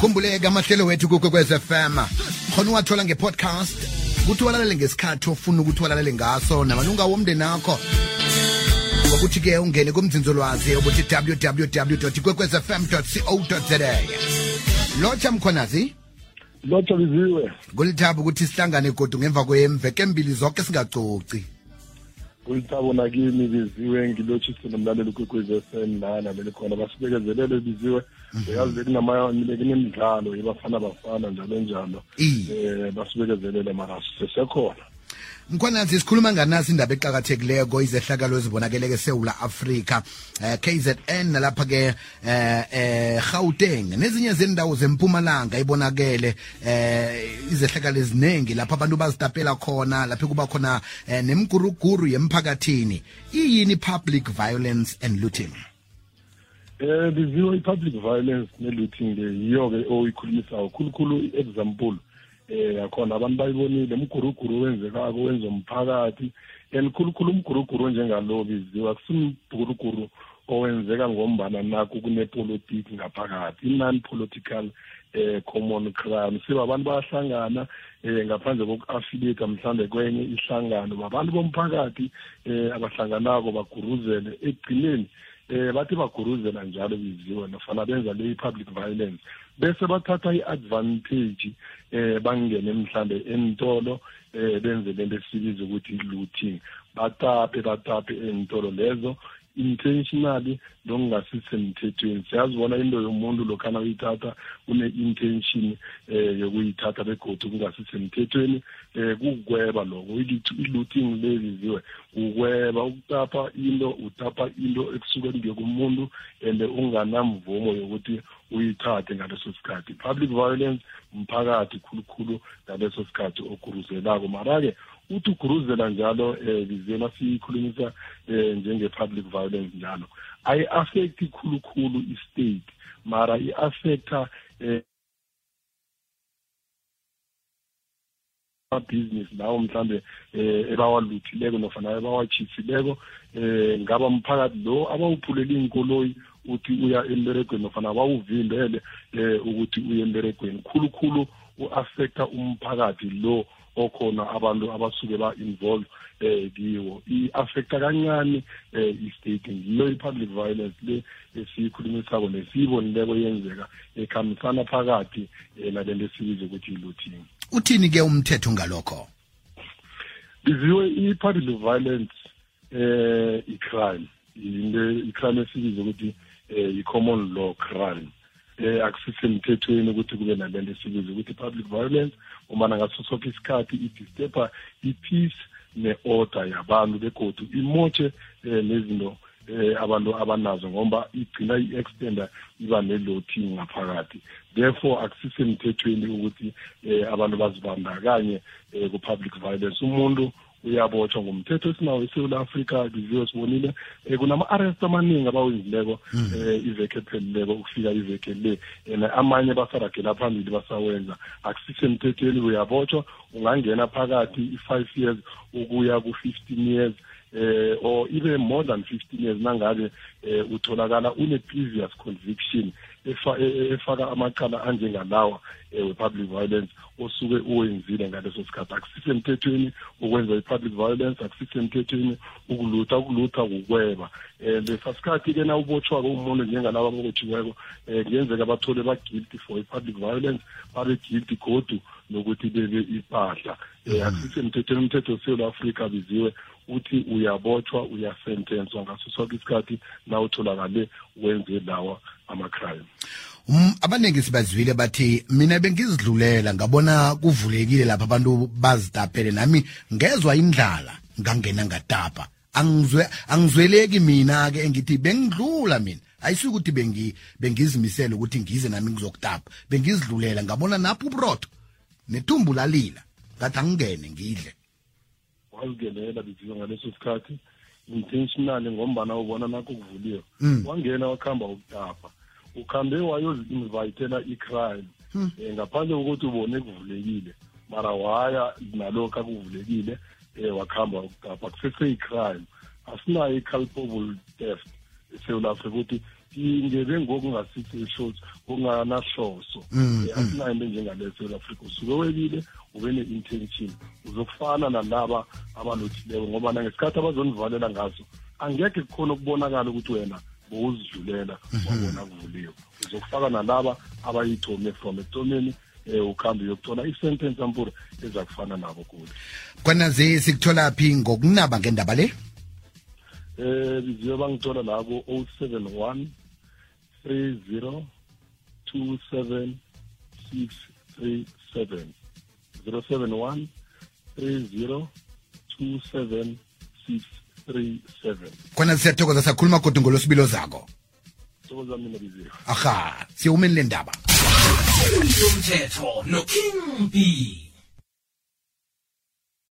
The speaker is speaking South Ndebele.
Kumbuleka amahlelo wethu kuKwekwezi FM. Khona uwathola ngepodcast. Kuthi walalele ngesikhathi ofuna ukuthi walalele ngaso namalunga womndeni wakho. Ngokuthi ke ungene kumzinzolwazi obuthi www.kwekwezfm.co.za. Locha Mkhonazi. Locha Biziwe. Kulithaba ukuthi sihlangane kodwa ngemva kwemveke embili zonke singacoci. Kulithaba nakimi Biziwe ngilochise nomlaleli kuKwekwezi FM lana leli khona basibekezelele Biziwe. Uyazi kunemidlalo yebafana njalo basibekezelele mara sesekhona. Mkhonanzi sikhuluma nganasi indaba eqhakathekileko izehlakalo ezibonakeleke eSouth Africa KZN nalapha ke Gauteng nezinye zendawo zempumalanga ibonakele izehlakalo eziningi lapha abantu bazitapela khona lapha kuba khona nemguruguru yemphakathini. Iyini public violence and looting? The public violence ne-looting yiyo ke oyikhulumisa kakhulu example akhona abantu bayibonile umguruguru wenzekako wenza umphakathi khulukhulu umguruguru njengalo biziwe akusimguruguru owenzeka ngombana nakho kunepolitiki ngaphakathi non-political common crime siba abantu bayahlangana ngaphandle koku-affiliate mhlawumbe kwenye ihlangano abantu bomphakathi abahlanganako baguruzele ekugcineni bathi baguruzela njalo biziwe nofana benza le public violence bese bathatha i-advantage bangene mhlambe entolo benze lento esibiza ukuthi i-looting batape entolo lezo intentionally lokungasisemthethweni. Siyazibona into yomuntu lokhana uyithatha une-intention yokuyithatha begodu kungasisemthethweni kugweba lokho i-looting leziziwe ugweba ukutapa into ekusuke kumuntu and unganamvumo yokuthi uyithathe ngaleso sikhathi. Public violence umphakathi khulukhulu ngaleso sikhathi oguruzelako mara-ke uthi uguruzela njalo bizena siyikhulumisa njenge-public violence njalo ayi-affecti khulukhulu i-state mara i-affecta business lawo mhlambe ebawaluthileko nofana ebawachisileko ngaba mphakathi lo abawuphulela inkoloyi uthi uya emberegweni nofana bawuvimbele ukuthi uye emberegweni khulukhulu u-affecta umphakathi lo okhona abantu abasuke ba-involve kiwo i-affecta kancane i-state ngiyo i-public violence le esiyikhulumisako nesiyibonileko yenzeka ekhambisana phakathi nalento esibiza ukuthi i-looting. Uthini-ke umthetho ngalokho? Biziwe i-public violence i-crime i-crime esibiza ukuthi i-common law crime akusisemthethweni ukuthi kube nalento esibiza ukuthi public violence umana ngaso sonke isikhathi idisturba i-peace ne-order yabantu begodu imotshe nezinto abantu abanazo ngoba igcina i-extender iba ne-looting ngaphakathi. Therefore akusisemthethweni ukuthi abantu bazibandakanye ku-public violence. Umuntu uyabotshwa ngomthetho esinawo eSouth Africa biziwe sibonile kunama-arrest amaningi abawenzileko iveke ephelileko ukufika iveke le amanye basaragela phambili basawenza akusisemthethweni uyabotshwa ungangena phakathi i-5 years ukuya ku-15 years or even more than 15 years nangabe utholakala une-previous conviction efaka amacala anjengalawa we-public violence osuke uwenzile ngaleso sikhathi. Akusisemthethweni ukwenza i-public violence akusisemthethweni ukulutha kukweba lesa sikhathi-ke na ubotshwako umuntu njengalaba abotshiweko kuyenzeka bathole ba-guilty for i-public violence babe guilty godu nokuthi bebe ipahla akusisemthethweni. Umthetho weSouth Africa biziwe uthi uyabotshwa uyasentenswa ngaso sonke isikhathi na utholakale wenze lawa ama-crime. Abaningi sibazwile bathi mina bengizidlulela ngabona kuvulekile lapha abantu bazitapele nami ngezwa indlala ngangena ngatapa angizweleki mina ke engithi bengidlula mina ayisuka ukuthi bengizimisela ukuthi ngize nami ngizokutapa bengizidlulela ngabona napho ubrotho nethumbu lalila ngathi angingene ngidle wazigelela biziwe ngaleso sikhathi intentionally ngombana ubona nakho kuvuliwe wangena wakhamba ukutapa ukhambe wayozi-invitela i-crime ngaphandle kokuthi ubone kuvulekile mara waya nalokho akuvulekile wakhamba ukutapa kusese i-crime asinayo i-culpable theft eSouth Africa ukuthi ingebe ngokungasithi shows ngokunganahloso asinayo into njengale South Africa usuke webile ube ne-intention uzokufana nalaba abalothileko ngoba nangesikhathi abazonivalela ngazo angeke kukhona ukubonakala ukuthi wena bowuzidlulela wabona kuvuliwe uzokufaka nalaba abayithome from ekuthomeni ukhambi yokuthola i-sentence ampura eza kufana nabo kude kwanazi sikuthola phi ngokunaba ngendaba le biziwe bangithola labo 071 30 27 637 071 30 27 637 khona siyathokoza sakhuluma kodwa ngolosibilo zakho thokoza mina biziwe aha siyumeni le ndaba umthetho no King B